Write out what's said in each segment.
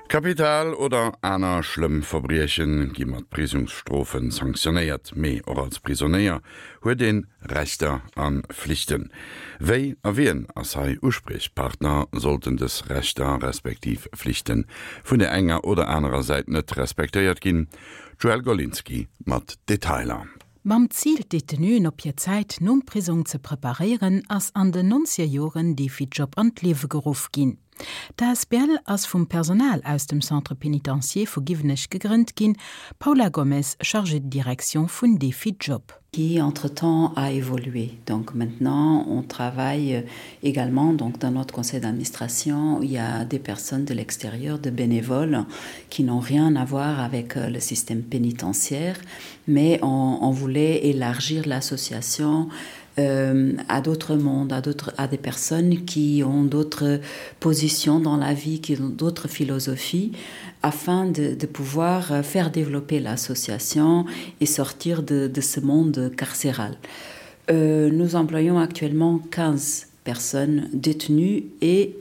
Kapital oder aner schlëmm Verbriechen gi mat Prisongsstrofen sanktionéiert, mee och als Prisonéier huet een Rechter a Flichten. Wéi a wien ass hei Uspriechpartner, sollten dës Rechter respektiv Flichten vun der enger oder anerer Säit net respektéiert ginn? D'Joëlle Golinski mat Detailer. Mam Zil, d'Detenuen op hir Zäit nom Prisong ze preparéieren, ass an den nonzeger Joren Défi-Job an d'Liewe geruff ginn. D'asbl ass vum Personal aus dem Centre pénitentiaire vu Giwenech gegrënnt ginn, Paula Gomez, Chargée de direction vun Défi-Job. Qui entre-temps a évolué. Donc maintenant on travaille également donc dans notre conseil d'administration il y a des personnes de l'extérieur, de bénévoles qui n'ont rien à voir avec le système pénitentiaire, mais on, on voulait élargir l'association euh, à d'autres mondes, à, d'autres, à des personnes qui ont d'autres positions dans la vie, qui ont d'autres philosophies, afin de, de pouvoir faire développer l'association et sortir de, de ce monde carcéral. Euh, nous employons actuellement 15 personnes détenues et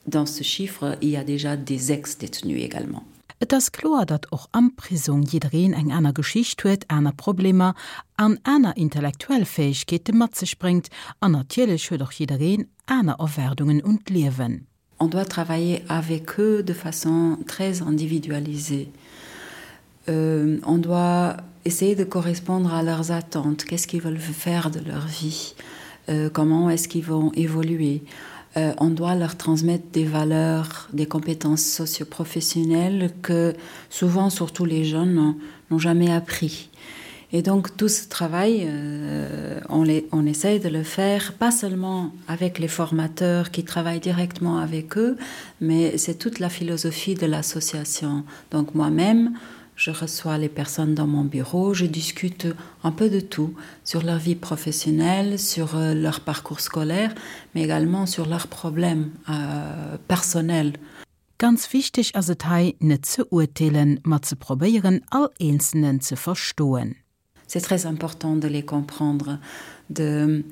dans ce chiffre, il y a déjà des ex-détenus également. Et ass kloer, datt och am Prisong jiddereen eng aner Geschicht huet, aner Problemer an aner intellektuell Fäegkeete mat sech bréngt an natierlech huet och jiddereen aner Erwaardungen un d'Liewen. On doit travailler avec eux de façon très individualisée. Euh, on doit essayer de correspondre à leurs attentes, qu'est-ce qu'ils veulent faire de leur vie, euh, comment est-ce qu'ils vont évoluer. Euh, on doit leur transmettre des valeurs, des compétences socioprofessionnelles que souvent, surtout les jeunes, n'ont jamais appris. Et donc tout ce travail, euh, on, les, on essaye de le faire pas seulement avec les formateurs qui travaillent directement avec eux, mais c'est toute la philosophie de l'association. Donc moi-même, je reçois les personnes dans mon bureau, je discute un peu de tout sur leur vie professionnelle, sur euh, leur parcours scolaire, mais également sur leurs problèmes euh, personnels. Ganz wichteg ass et hei, net ze urteelen, ma ze probéieren, all Eenzelnen ze verstoen. C'est très important de les comprendre, de,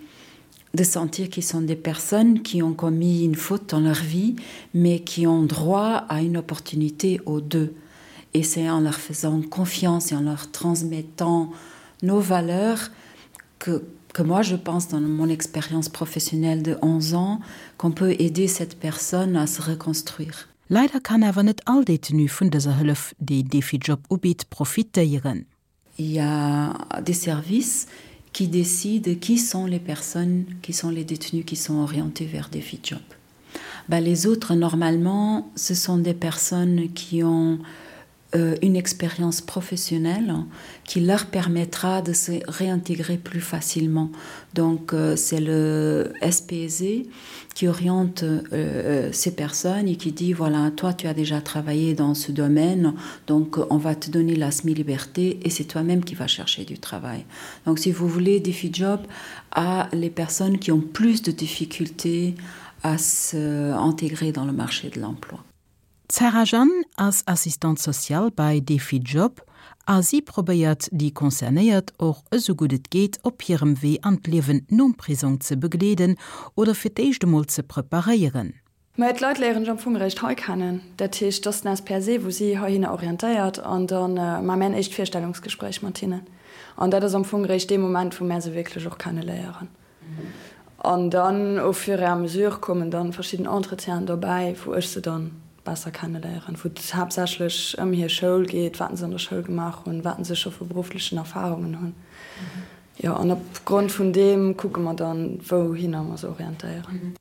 de sentir qu'ils sont des personnes qui ont commis une faute dans leur vie, mais qui ont droit à une opportunité aux deux. Et c'est en leur faisant confiance et en leur transmettant nos valeurs que, que moi je pense dans mon expérience professionnelle de 11 ans qu'on peut aider cette personne à se reconstruire. Leider kann awer net all Détenu vun dëser Hëllef, déi Défi-Job ubitt, profitéieren. Il y a des services qui décident qui sont les personnes, qui sont les détenus qui sont orientés vers des job. Ben, les autres, normalement, ce sont des personnes qui ont euh, une expérience professionnelle qui leur permettra de se réintégrer plus facilement. Donc euh, c'est le SPZ qui oriente euh, euh, ces personnes et qui dit voilà toi tu as déjà travaillé dans ce domaine donc on va te donner la semi-liberté et c'est toi-même qui vas chercher du travail. Donc si vous voulez défi job à les personnes qui ont plus de difficultés à se intégrer dans le marché de l'emploi. D'Sarah Jeanne ass Assistante sociale bei Défi Job a si probéiert déi Concernéiert och esou gutt et geet op hirem Wee an d'Liewen nom Prisong ze begleeden oder fir d'éischt emol ze preparéieren. Mä d'Leit léieren ech am Fong eréischt hei kennen. Dat heescht, et ass den SPSE, wou si heihinner orientéiert an da maache mär en éischt Virstellungsgespréich mat hinnen. An dat ass am Fong eréischt dee Moment, wou mär se wierklech och kenne léieren. An dann au fur et à mesure kommen dann verschidden Entretienen dobäi, wou ech se dann besser kenneléieren, wou et haaptsächlech ëm hir Schoul geet, wat se an der Schoul gemaach hunn, wat se scho vu berufflechen Erfahrungen hunn. Jo, an op Grond vun deem kucke mer dann, wouhinner mer se orientéieren.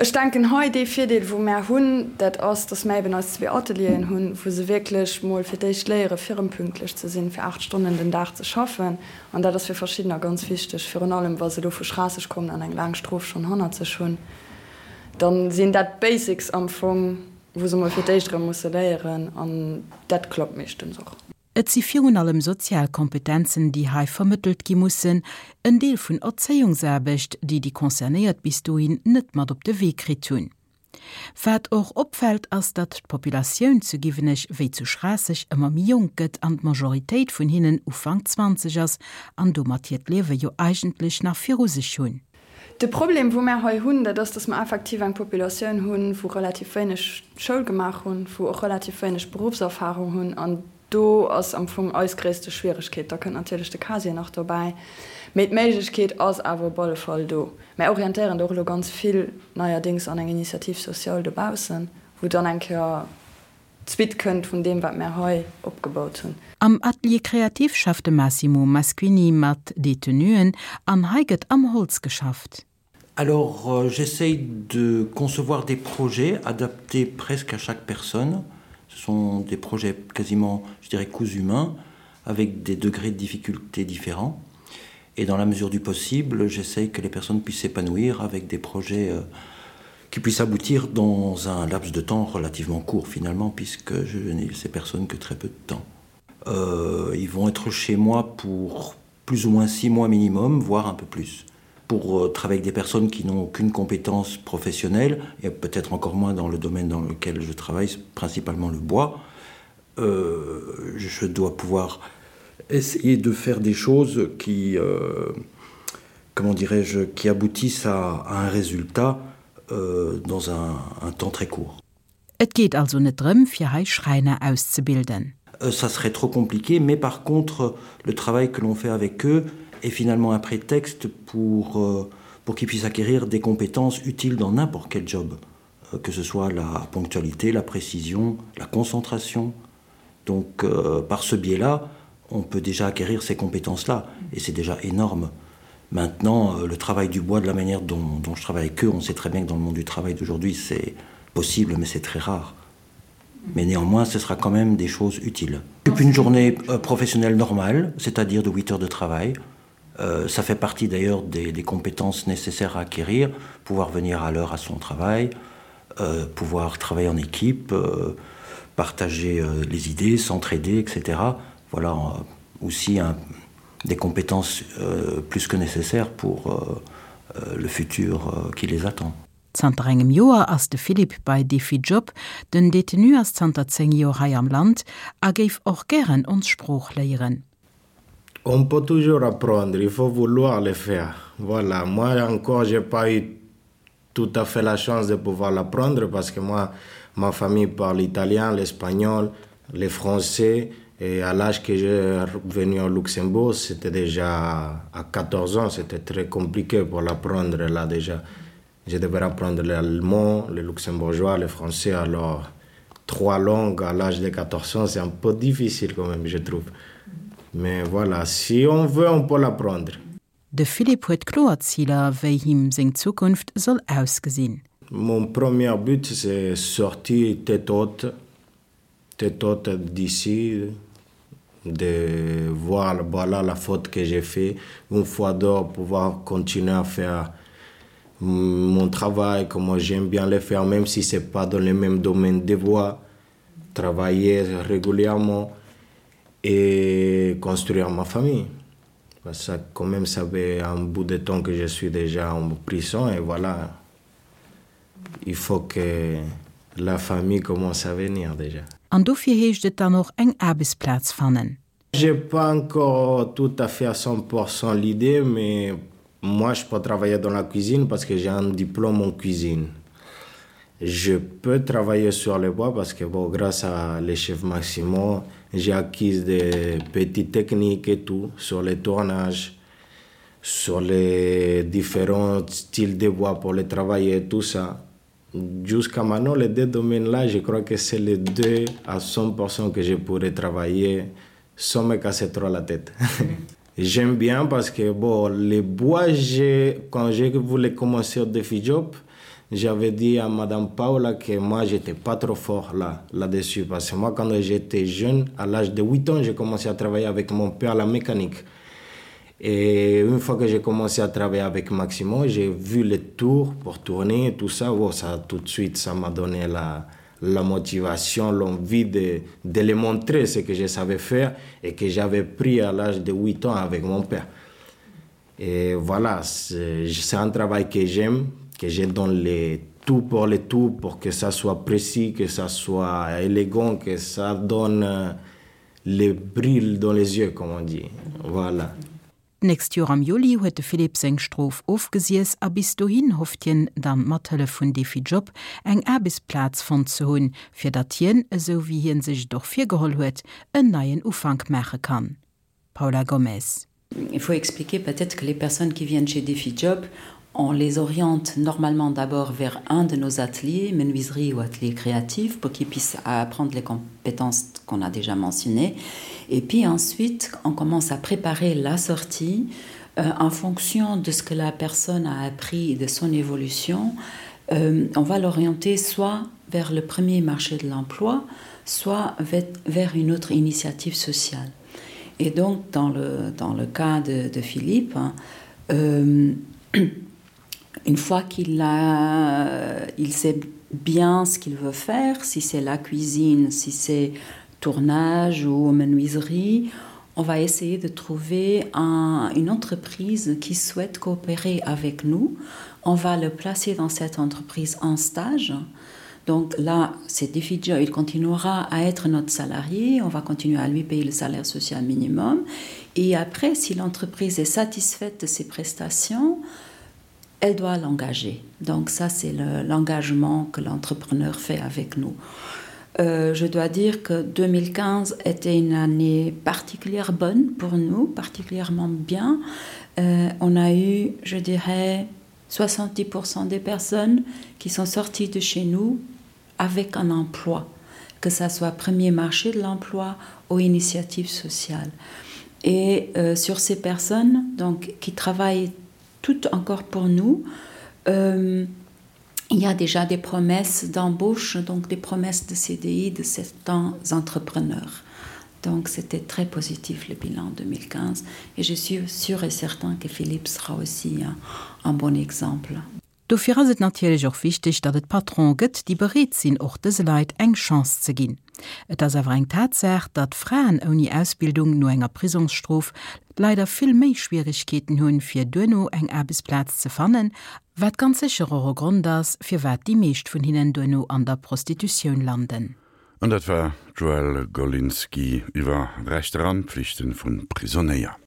Ech denken hei, dee Virdeel, wou mär hunn, dat ass, dass mär eben eis zwee Atelieren hunn, wou se wierklech mol fir d'éischt léiere fir erëm pünktlech ze sinn, fir 8 Stonnen den Dag ze schaffen. An dat ass fir verschiddener ganz wichteg, virun allem wa se elo vu Schraasseg kommen an eng laang Strof schonn hannert sech hunn. Da sinn dat d'Basics am Fong, wou se mol fir d'éischt erëm musse léieren. An dat klappt meeschtens och. Et si virun allem sozial Kompetenzen, déi hei vermëttelt gi mussen, en Deel vun Erzéiungsaarbecht, déi déi Concernéiert bis dohin net mat op de Wee kritt hunn. Wat och opfält, ass, datt d'Populatioun zu Giwenech wéi zu Schraasseg ëmmer méi jonk gëtt an d'Majoritéit vun hinnen Ufank 20 ass an domat hiert Liewe jo eigentlech nach viru sech hunn. De Problem, wou mär hei hunn, dat ass, dass mer effektiv eng Populatioun hunn, wou relativ wéineg Schoul gemaach hunn, wou och relativ wéineg Beruffserfahrung hunn. An do ass am Fong eis gréisste Schwieregkeet. Da kënnt natierlech de Casier nach dobäi. Mee d'Méiglechkeet ass awer op alle Fall do. Mär orientéieren do och elo ganz vill neierdéngs an eng Initiative sociale dobaussen, wou dann eng Kéier d'Suite kënnt vun deem, wat mär hei opgebaut hunn. Am Atelier créatif schafft de Massimo Masquini mat Detenuen an hei gëtt am Holz geschafft. Alors euh, j'essaye de concevoir des projets adaptés presque à chaque personne. Ce sont des projets quasiment, je dirais, coups humains avec des degrés de difficulté différents. Et dans la mesure du possible, j'essaye que les personnes puissent s'épanouir avec des projets euh, qui puissent aboutir dans un laps de temps relativement court finalement, puisque je n'ai ces personnes que très peu de temps. Euh, ils vont être chez moi pour plus ou moins six mois minimum, voire un peu plus. Pour euh, travailler avec des personnes qui n'ont aucune compétence professionnelle, et peut-être encore moins dans le domaine dans lequel je travaille, principalement le bois, euh, je dois pouvoir essayer de faire des choses qui, euh, comment dirais-je, qui aboutissent à, à un résultat euh, dans un, un temps très court. Et geet also net drëm, fir hei Schräiner auszebilden. Euh, ça serait trop compliqué, mais par contre le travail que l'on fait avec eux est finalement un prétexte pour, euh, pour qu'ils puissent acquérir des compétences utiles dans n'importe quel job, euh, que ce soit la ponctualité, la précision, la concentration. Donc euh, par ce biais-là, on peut déjà acquérir ces compétences-là et c'est déjà énorme. Maintenant, euh, le travail du bois de la manière dont, dont je travaille avec eux, on sait très bien que dans le monde du travail d'aujourd'hui, c'est possible, mais c'est très rare. Mais néanmoins, ce sera quand même des choses utiles. Depuis une journée euh, professionnelle normale, c'est-à-dire de 8 heures de travail, euh, ça fait partie d'ailleurs des, des compétences nécessaires à acquérir, pouvoir venir à l'heure à son travail, euh, pouvoir travailler en équipe, euh, partager euh, les idées, s'entraider, etc. Voilà euh, aussi un, des compétences euh, plus que nécessaires pour euh, euh, le futur euh, qui les attend. Zanter engem Joer ass de Philippe bei Défi-Job. Den Detenu ass zanter 10 Joer hei am Land a géif och gären ons Sprooch léieren. On peut toujours apprendre, il faut vouloir le faire. Voilà, moi encore j'ai pas eu tout à fait la chance de pouvoir l'apprendre parce que moi ma famille parle italien, l'espagnol, le français et à l'âge que j'ai venu au Luxembourg, c'était déjà à 14 ans, c'était très compliqué pour l'apprendre là déjà. Je devais apprendre l'allemand, le luxembourgeois, le français alors trois langues à l'âge de 14 ans, c'est un peu difficile quand même, je trouve. Mais voilà, si on veut, on peut l'apprendre. De Philippe huet kloer Ziler, wéi him seng Zukunft soll ausgesinn. Mon premier but, c'est sortir tête haute, tête haute d'ici, de voir voilà la faute que j'ai fait une fois d'or pouvoir continuer à faire mon travail comme j'aime bien le faire même si c'est pas dans le même domaine de voix travailler régulièrement et construire ma famille ça quand même ça fait un bout de temps que je suis déjà en prison et voilà il faut que la famille commence à venir déjà. An dofir heescht et dann och eng Aarbechtsplaz fannen. J'ai pas encore tout à fait à 100% l'idée, mais moi je peux travailler dans la cuisine parce que j'ai un diplôme en cuisine. Je peux travailler sur les bois parce que bon, grâce à les chefs Maximo, j'ai acquis des petites techniques et tout sur les tournages, sur les différents styles de bois pour les travailler, tout ça. Jusqu'à maintenant, les deux domaines-là, je crois que c'est les deux à 100% que je pourrais travailler sans me casser trop la tête. J'aime bien parce que bon, les bois, quand je voulais commencer au défi job, j'avais dit à Madame Paula que moi, j'étais pas trop fort là, là-dessus. Parce que moi, quand j'étais jeune, à l'âge de 8 ans, j'ai commencé à travailler avec mon père à la mécanique. Et une fois que j'ai commencé à travailler avec Maximo, j'ai vu les tours pour tourner et tout ça. Bon, ça tout de suite, ça m'a donné la, la motivation, l'envie de, de les montrer ce que je savais faire et que j'avais pris à l'âge de 8 ans avec mon père. Et voilà, c'est un travail que j'aime, que je donne les tout pour les tout, pour que ça soit précis, que ça soit élégant, que ça donne euh, les brilles dans les yeux, comme on dit. Voilà. D'nächst Joer am Juli huet de Philippe seng Strof ofgesiess a bis dohin hofft hien dann mat Hëllef vun Défi-Job eng Aarbechtsplaz fonnt ze hunn, fir datt hien, esou wéi hien sech et och virgeholl huet, en neien Ufank maache kann. Paula Gomez. Il faut expliquer peut-être que les personnes qui viennent chez DéfiJob, on les oriente normalement d'abord vers un de nos ateliers, menuiserie ou atelier créatif, pour qu'ils puissent apprendre les compétences qu'on a déjà mentionnées. Et puis ensuite, on commence à préparer la sortie euh, en fonction de ce que la personne a appris et de son évolution. Euh, on va l'orienter soit vers le premier marché de l'emploi, soit vers une autre initiative sociale. Et donc dans le, dans le cas de, de Philippe, hein, euh, une fois qu'il a il sait bien ce qu'il veut faire, si c'est la cuisine, si c'est tournage ou menuiserie, on va essayer de trouver un, une entreprise qui souhaite coopérer avec nous. On va le placer dans cette entreprise en stage. Donc là, c'est difficile, il continuera à être notre salarié, on va continuer à lui payer le salaire social minimum. Et après, si l'entreprise est satisfaite de ses prestations, elle doit l'engager. Donc ça, c'est l'engagement le, que l'entrepreneur fait avec nous. Euh, je dois dire que 2015 était une année particulièrement bonne pour nous, particulièrement bien. Euh, on a eu, je dirais, 70% des personnes qui sont sorties de chez nous avec un emploi, que ça soit premier marché de l'emploi ou initiative sociale. Et euh, sur ces personnes donc, qui travaillent toutes encore pour nous, euh, il y a déjà des promesses d'embauche, donc des promesses de CDI de certains entrepreneurs. Donc c'était très positif le bilan 2015 et je suis sûr et certain que Philippe sera aussi un, un bon exemple. Dofir ass et natierlech och wichteg, datt et Patronen gëtt, déi bereet sinn, och dëse Leit eng Chance ze ginn. Et ass awer eng Tatsaach, datt Fraen ouni Ausbildung no enger Prisongsstrof leider vill méi Schwieregkeeten hunn, fir duerno eng Aarbechtsplaz ze fannen, wat ganz sécher och e Grond ass, firwat déi meescht vun hinnen duerno an der Prostitutioun landen. An dat war d'Joëlle Golinski iwwer Rechter an Pflichten vun Prisonéier.